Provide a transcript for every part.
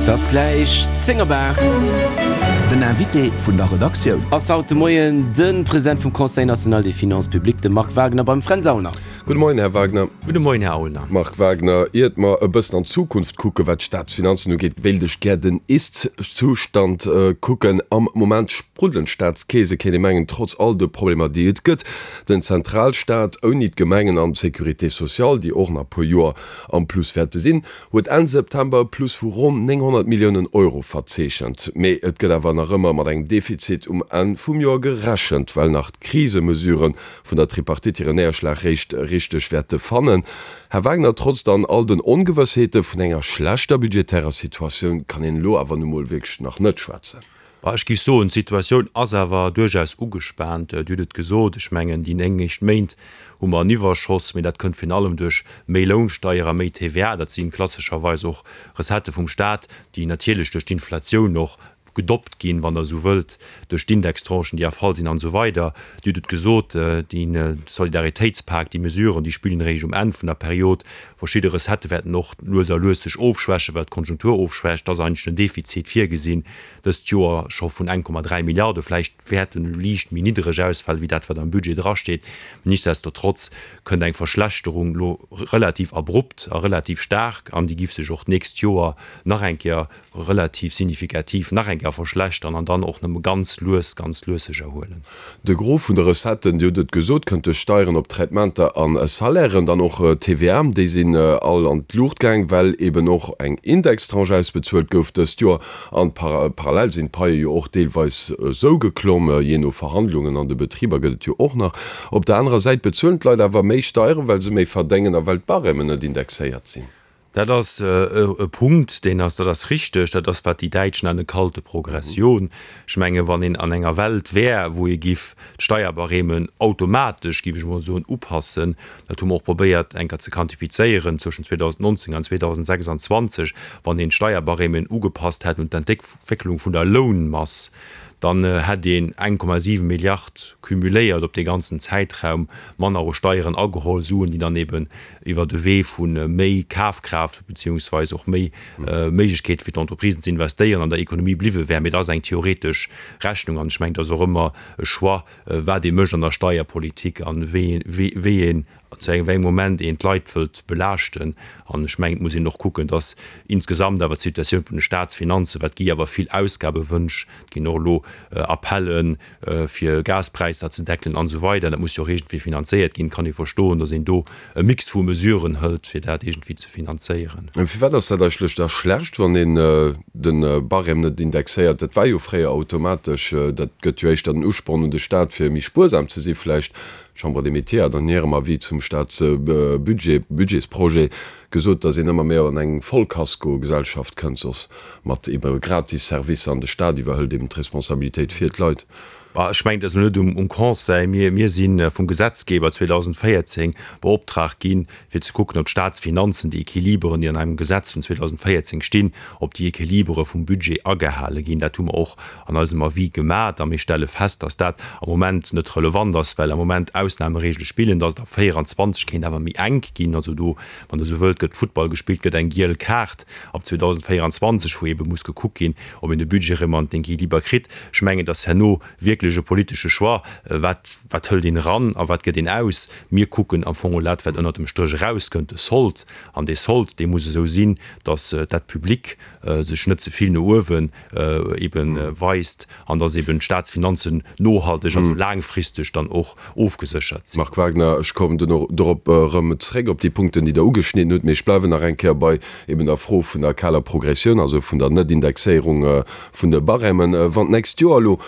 Et ass gläich 10 op 8. Den Invité vun der Redaktioun. Ass haut de Moien de President vum Conseil national des finances publiques, de Marc Wagner beim Fränz Aulner. Gudde Moien, Här Wagner. Gudde Moien, Här Aulner. Marc Wagner, iert mer e bëssen an d'Zukunft kucken, wat d'Staatsfinanzen ugeet, wéilt ech gär den Ist-Zustand kucken. Am Moment spruddelen d'Staatskeese, kéint ee mengen, trotz all de Problemer, déi et gëtt. Den Zentralstaat, ouni d'Gemengen an d'Sécurité sociale, déi och nach e puer Joer am Plus wäerte sinn, huet Enn September e Plus vu ronn 900 Milliounen Euro verzeechent. Mee et gëtt awer nach ëmmer mat engem Defizit um Enn vum Joer gerechent, well nach d'Krisemesurë vun der Tripartite hiren Néierschlag réischt richteg wäerte fannen. Här Wagner, trotz dann all den Ongewëssheete vun enger schlechter budgetärer Situatioun kann een elo awer nu mol wierklech nach net schwätzen. Bah, ech géif soen, d'Situatioun ass awer duerchaus ugespaant. Dir hutt et gesot, ech mengen, déi 9 éischt Méint hu mer en Iwwerschoss, mee dat kënnt virun allem duerch méi Lounsteier a méi TVA. Dat si klassescherweis och Recettë vum Staat, déi natierlech duerch d'Inflatioun och gedoppt ginn, wann Der esou wëllt, duerch d'Indextranchen, déi erfall sinn an esou weider. Dir hutt et gesot, de Solidaritéitspak, déi Mesuren, déi spillen eréischt um Enn vun der Period. Verschidde Recettë wäerten och lues a lues sech ofschwächen, well d'Konjunktur ofschwächt. Et ass eigentlech en Defizit virgesinn dëst Joer scho vun 1,3 Milliarde. Vläicht wäert en liicht méi niddereg ausfalen, wéi dat, wat am Budget drasteet. Mee nichtsdestotrotz kënnt eng Verschlechterung elo relativ abrupt a relativ staark an déi giff sech och d'nächst Joer nach eng Kéier relativ signifikativ nach eng Kéier verschlechtern an dann och nëmme ganz lues, ganz lues sech erhuelen. De Gros vun de Recetten, Dir hutt et gesot, kënnt duerch Steieren op Traitementer a Salairen, dann och TVA, déi sinn all an d'Luucht gaang, well eben och eng Indextranche ausbezuelt gouf dëst Joer. An parallel sinn d'Paie jo och deelweis esou geklomm, jee no Verhandlungen an de Betriber gëtt et jo och nach. Op der anerer Säit bezuelen d'Leit awer méi Steieren, well se méi verdéngen a well d'Barèmen net indexéiert sinn. Dat ass e Punkt, deen ass, dat ass richteg, dat ass wat déi Däitsch nenne kalte Progression. Ech menge wann een an enger Welt wär, wou ee giff d'Steierbarèmen automatesch, giff ech emol soen, upassen, dat hu mer och probéiert eng Kéier ze quantifizéieren zwëschen 2019 an 2026, wann een d'Steierbarèmen ugepasst hätt un d'Entwécklung vun der Lounmass, dann hätt een 1,7 Milliard cumuléiert op dee ganzen Zäitraum manner u Steieren ageholl, Suen, déi dann eben iwwer de Wee vu méi Kafkraaft beziehungsweis och méi Méiglechkeete fir d'Entreprisen ze investéieren an der Ekonomie bliwwe wären. Mee dat ass eng theoretesch Rechnung an ech mengen, et ass och ëmmer e Choix, wat ee mécht an der Steierpolitik a wéi een zu engem wéi engem Moment een d'Leit wëllt belaaschten. An ech mengen, et muss een och kucken, dass insgesamt awer d'Situatioun vun de Staatsfinanzen, wat gi awer vill Ausgabewënsch, et ginn och elo Appellen, fir Gaspräisser ze deckelen an esou weider, dat muss jo och iergendwéi finanzéiert ginn, kann ee verstoen, dass een do e Mix vu Mesuren hëlt, fir dat iergendwéi ze finanzéieren. Firwat ass dat eigentlech da schlecht, wann een de Barème net indexéiert? Dat war jo fréier automatesch. Dat gëtt jo éischter den Usporn un de Staat, fir méi spuersam ze si vläicht. D'Chambre des Métiers hat an hirem Avis zum Staatsbudget, Budgetsprojet, gesot, datt een ëmmer méi an eng Vollkasko-Gesellschaft kënnt, soss mat ebe gratis Servicer, an de Staat iwwerhëlt eben d'Responsabilitéit fir d'Leit. Bah, ech mengen, et ass elo net um Conseil. Mir, mir si vum Gesetzgeber 2014 beoptraagt ginn, fir ze kucken, ob d'Staatsfinanzen, déi Equiliberen, déi an engem Gesetz vun 2014 stinn, ob déi Equilibere vum Budget agehale ginn. Dat hu mer och an eisem Avis gemat a mir stelle fest, dass dat am Moment net relevant ass, well am Moment Ausnahmeregele spillen, dass et ab 24 kéint awer méi enk ginn. Also do, wann Der esou wëllt, gëtt Futtball gespillt, gëtt eng giel Kaart ab 2024, wou eebe muss gekuckt ginn, ob een de Budget erëm an den Equiliber kritt. Ech mengen, dass herno wierklech e politesche Choix, wat, wat hëlt een eran a wat gëtt een aus. Mir kucken am Fong dat, wat ënnert dem Stréch erauskënnt, de Sold. An dee Sold, dee muss esou sinn, dass d'Dette publique sech net ze vill no uewe ebe weist an dass eben d'Staatsfinanzen nohalteg, also laangfristeg dann och ofgeséchert sinn. Marc Wagner, Ech kommen duerno dorop erëm zréck, op déi Punkten, déi Der ugeschnidden hutt. Mee ech bleiwen nach eng Kéier bei eben der Fro vun der kaler Progressioun, also vun der Net-Indexéierung vun de Barèmen. Wann d'nächst Joer elo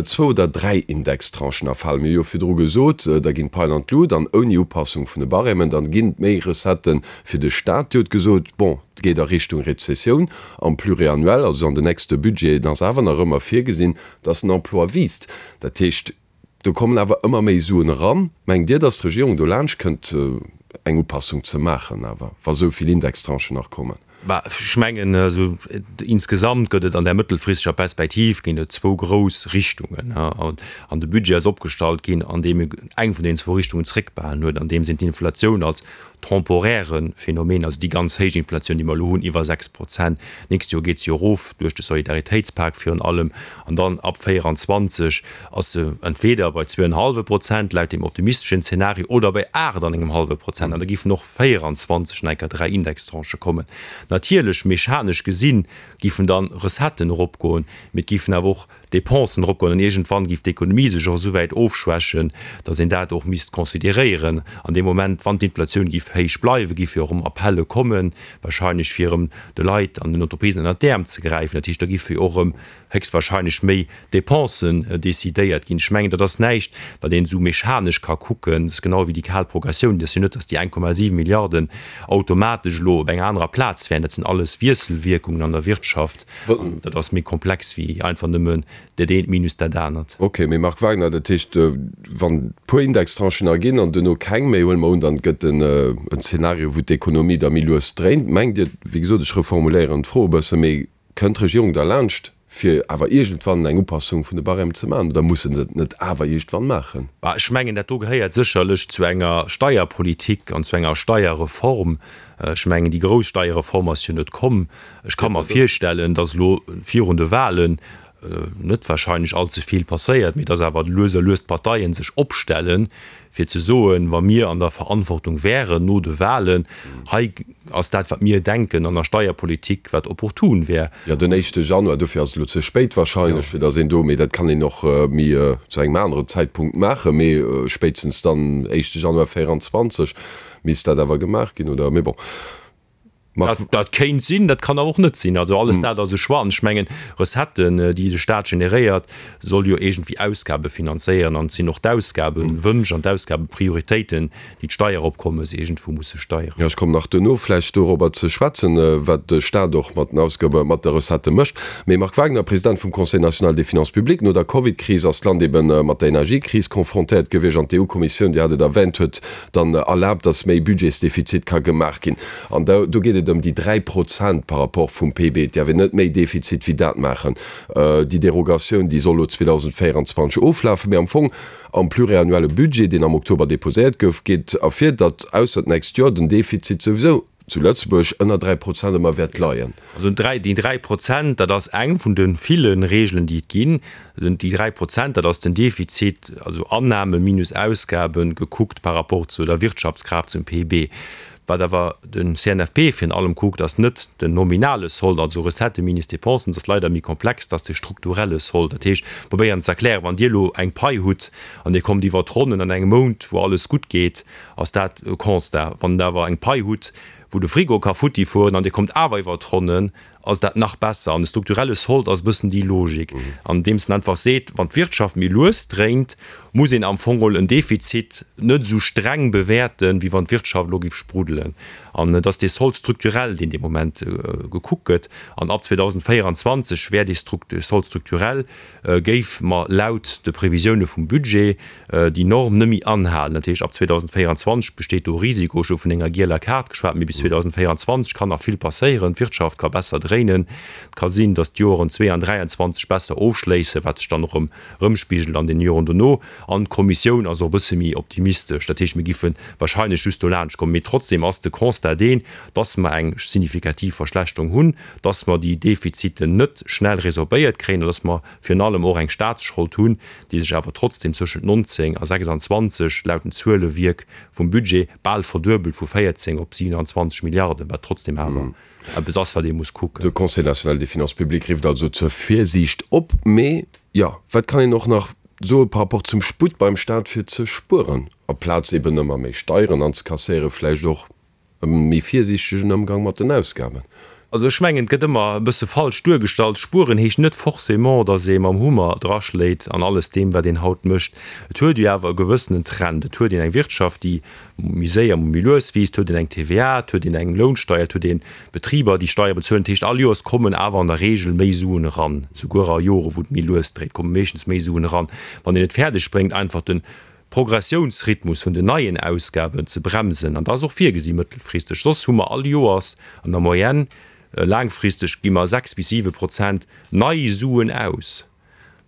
zwou oder dräi Indextranchen erfalen, mir hu jo virdru gesot, da ginn d'Paien an d'Lut an ouni Upassung vun de Barèmen, dann ginn et méi Recettë fir de Staat. Dir hutt gesot, bon, et geet a Richtung Rezessioun am Pluriannuel, also an den nächste Budgeten ass awer nach ëmmer virgesinn, dass den Emploi wiisst. Dat heescht, do kommen awer ëmmer méi Suen eran. Mengt Dir, dass d'Regierung do laanscht kënnt, eng Upassung ze maachen awer, wa sou vill Indextranchen nach kommen? Bah, ech mengen, also insgesamt gëtt et an där mëttelfristeger Perspektiv ginn et zwou grouss Richtungen. An de Budget ass opgestallt ginn, andeem e eng vun deenen zwou Richtungen zréckbehalen huet, andeems een d'Inflatioun als temporäre Phänomen, also déi ganz héich Inflatioun, déi mer elo hunn, iwwer 6%, d'nächst Joer geet se jo erof duerch de Solidaritéitspak virun allem, an dann ab 24 ass se entweder bei zwou an e hallwe Prozent laut deem optimisteschen Zeenario oder bei 8 an engem hallwe Prozent, an da géifen och 24 nach eng Kéier 3 Indextranchë kommen. Natierlech, mechanesch gesinn, giffen dann Recetten eropgoen, mee et giffen awer och Dépensen eropgoen an iergendwann giff d'Ekonomie sech och esouwäit ofschwächen, datt een dat och misst consideréieren. An deem Moment, wann d'Inflatioun giff héich bleiwen, giffe jo och erëm Appelle kommen, wahrscheinlech fir erëm de Leit an den Entreprisen ënnert d'Äerm ze gräifen. Dat heescht, da giffe jo och erëm héchstwahrscheinlech méi Dépensen décidéiert ginn. Ech mengen, dat ass näischt, wat een esou mechanesch ka kucken. Dat ass genau wéi déi kal Progressioun. Et ass jo net, datt déi 1,7 Milliarden automatesch elo op enger anerer Plaz wären. Dat sinn alles Wiesselwierkungen an der Wirtschaft. An dat ass méi komplex wéi einfach nëmmen dat eent minus dat anert. Ok, mee Marc Wagner, dat heescht, wann e puer Indextranchen erginn an duerno keng méi, huele mer un, dann gëtt en Zeenario, wou d'Ekonomie da méi lues dréint. Mengt Dir, wéi gesot, ech reformuléieren d'Fro e bësse, mee Kënnt d'Regierung derlaanscht, fir awer iergendwann eng Upassung vun de Barèmen ze maachen, oder muss se et net awer iergendwann maachen? Bah, ech mengen, dat do gehéiert sécherlech zu enger Steierpolitik an zu enger Steierreform. Ech mengen, déi grouss Steierreform ass jo net komm. Ech ka mer virstellen, datt elo virun de Wahlen net wahrscheinlech allze vill passéiert, mee datt awer lues a lues d'Parteie sech opstellen, fir ze soen, wa mir an der Verantwortung wären no de Wahlen, hei ass dat, wat mir denken an der Steierpolitik, wat opportun wär. Jo, den éischte Januar, dofir ass et elo ze spéit wahrscheinlech, fir datt een do, mee dat kann een och méi zu engem aneren Zäitpunkt maachen, mee spéitstens dann éischte Januar 24 misst dat awer gemaach ginn, oder? Mee bon. Dat kéint sinn, dat kann awer och net sinn. Also alles dat ass e Choix. An ech mengen, Recetten, déi de Staat generéiert, soll jo iergendwéi Ausgabe finanzéieren. An et sinn och d'Ausgabewënsch an d'Ausgabeprioritéiten, déi d'Steieropkommes iergendwou musse steieren. Jo, ech kommen nach duerno vläicht dorobber ze schwätzen, wat de Staat och mat den Ausgabe, mat de Recettë mécht. Mee Marc Wagner, President vum Conseil national des finances publiques, no der Covidkris ass d'Land ebe mat der Energiekris confrontéiert gewiescht an d'EU-Kommissioun, Dir hat et erwänt, huet dann erlaabt, dass méi Budgetsdefizit ka gemaach ginn. An do geet et ëm déi 3 Prozent par rapport vum PIB. Et däerf een net méi Defizit wéi dat maachen. Déi Derogatioun, déi soll elo 2024 oflafen. Mee am Fong am pluriannuelle Budget, deen am Oktober deposéiert gouf, geet ervir, datt ausser d'nächst Joer den Defizit souwisou zu Lëtzebuerg ënner 3 Prozent ëmmer wäert leien. Also déi 3 Prozent, dat ass eng vun de ville Regeln, déi et ginn. Déi 3 Prozent, dat ass den Defizit, also Annahme minus Ausgaben, gekuckt par rapport zu der Wirtschaftskraaft, zum PIB. Wat awer de CNFP virun allem kuckt, ass net den nominale Sold, also Recettë minus Dépensen, dat ass leider méi komplex, dat ass de strukturelle Sold. Dat heescht, probéieren ze erklären, wann Dir elo eng Pai hutt an Dir kommt iwwer d'Ronnen an engem Mount, wou alles gutt geet, ass dat e Constat. Wann Der awer eng Pai hutt, wou de Frigo ka futti fueren an Dir kommt awer iwwer d'Ronnen, ass dat nach besser. An de strukturelle Sold ass e bëssen déi Logik, andeems en einfach seet, wann d'Wirtschaft méi lues dréint, muss een am Fong geholl en Defizit net esou streng bewäerten, wéi wann d'Wirtschaft elo géif spruddelen. An et ass dee Solde structurel, deen dee Moment gekuckt gëtt. An ab 2024 wär dee Solde structurel, géif mer laut de Previsioune vum Budget déi Norm net méi anhalen. Dat heescht, ab 2024 besteet do e Risiko. Ech hu vun enger gieler Kaart geschwat, mee bis 2024 kann nach vill passéieren. D'Wirtschaft ka besser dréinen. Et ka sinn, datt d'Joren 2 an 23 besser ofschléissen, wat sech dann och erëm erëmspigelt an den Joren dono. An d'Kommissioun ass och e bësse méi optimistesch. Dat heescht, mir giffe wahrscheinlech just dolaanscht kommen. Mee trotzdem ass de Constat deen, datt mer eng signifikativ Verschlechterung hunn, datt mer déi Defiziten net schnell resorbéiert kréien an datt mer virun allem och eng Staatsschold hunn, déi sech awer trotzdem zwëschent 19 a 26, laut den Zuelewierk vum Budget, bal verduebelt vu 14 op 27 Milliarden, wat trotzdem awer eppes ass, wat ee muss kucken. De Conseil national des finances publiques rifft also zur Virsiicht op. Mee jo, wat kann een och nach soe par rapport zum Sputt beim Staat fir ze spueren, aplaz eben ëmmer méi Steieren anzekasséieren, vläicht och E méi virsiichtegen Ëmgang mat den Ausgaben. Also ech mengen, et gëtt ëmmer e bësse falsch duergestallt. Spueren heescht net forcément, datt ee mam Hummer draschléit an alles deem, wat een haut mécht. Et huet jo awer e gewëssenen Trend. Et huet een eng Wirtschaft, déi méi séier, méi lues wiisst. Et huet een eng TVA, et huet een eng Lounsteier, et huet ee Betriber, déi Steiere bezuelen. Dat heescht, all Joers kommen awer an der Regel méi Suen eran. Souguer a Jore wou et méi lues dréit, komme meeschtens méi Suen eran. Wann een et fäerdeg bréngt, einfach de Progressiounsrhythmus vun den neien Ausgaben ze bremsen, an dat ass och virgesi mëttelfristeg, soss hu mer all Joers an der Moyenne. Laangfristeg gi mer 6 bis 7 Prozent nei Suen aus.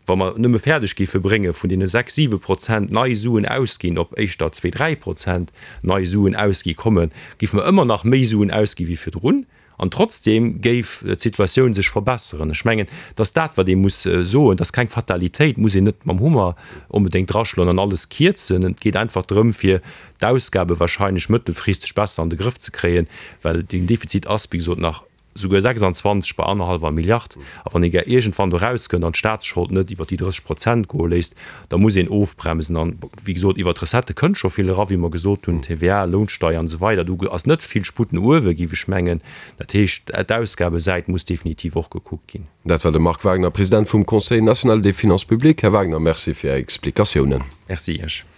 Wa mer nëmme fäerdeg géife brénge vun deene 6, 7 Prozent nei Suen ausginn op éischter 2, 3 Prozent nei Suen ausgi kommen, géife mer ëmmer nach méi Suen ausgi wéi virdrun an trotzdeem géif d'Situatioun sech verbesseren. Ech mengen, et ass dat, wat ee muss soen, et ass keng Fatalitéit, et muss een net mam Hummer onbedéngt draschloen an alles kierzen. Et geet einfach drëm, fir d'Ausgabe wahrscheinlech mëttelfristeg besser an de Grëff ze kréien, well den Defizit ass, wéi gesot, nach souguer 26 bei annerhallwer Milliard. A wann ee gär iergendwann do erauskënnt an d'Staatsschold net iwwer déi 30 Prozent goe léisst, da muss een ofbremsen. An, wéi gesot, iwwer d'Recettë kënnt scho vill era, wéi mer gesot hunn, TVA, Lounsteier an esou weider. Do ass net vill Sputt no uewe, géif ech mengen. Dat heescht, d'Ausgabesäit muss definitiv och gekuckt ginn. Dat war de Marc Wagner, President vum Conseil national des finances publiques. Här Wagner, Merci fir Är Explikatiounen. Merci Iech.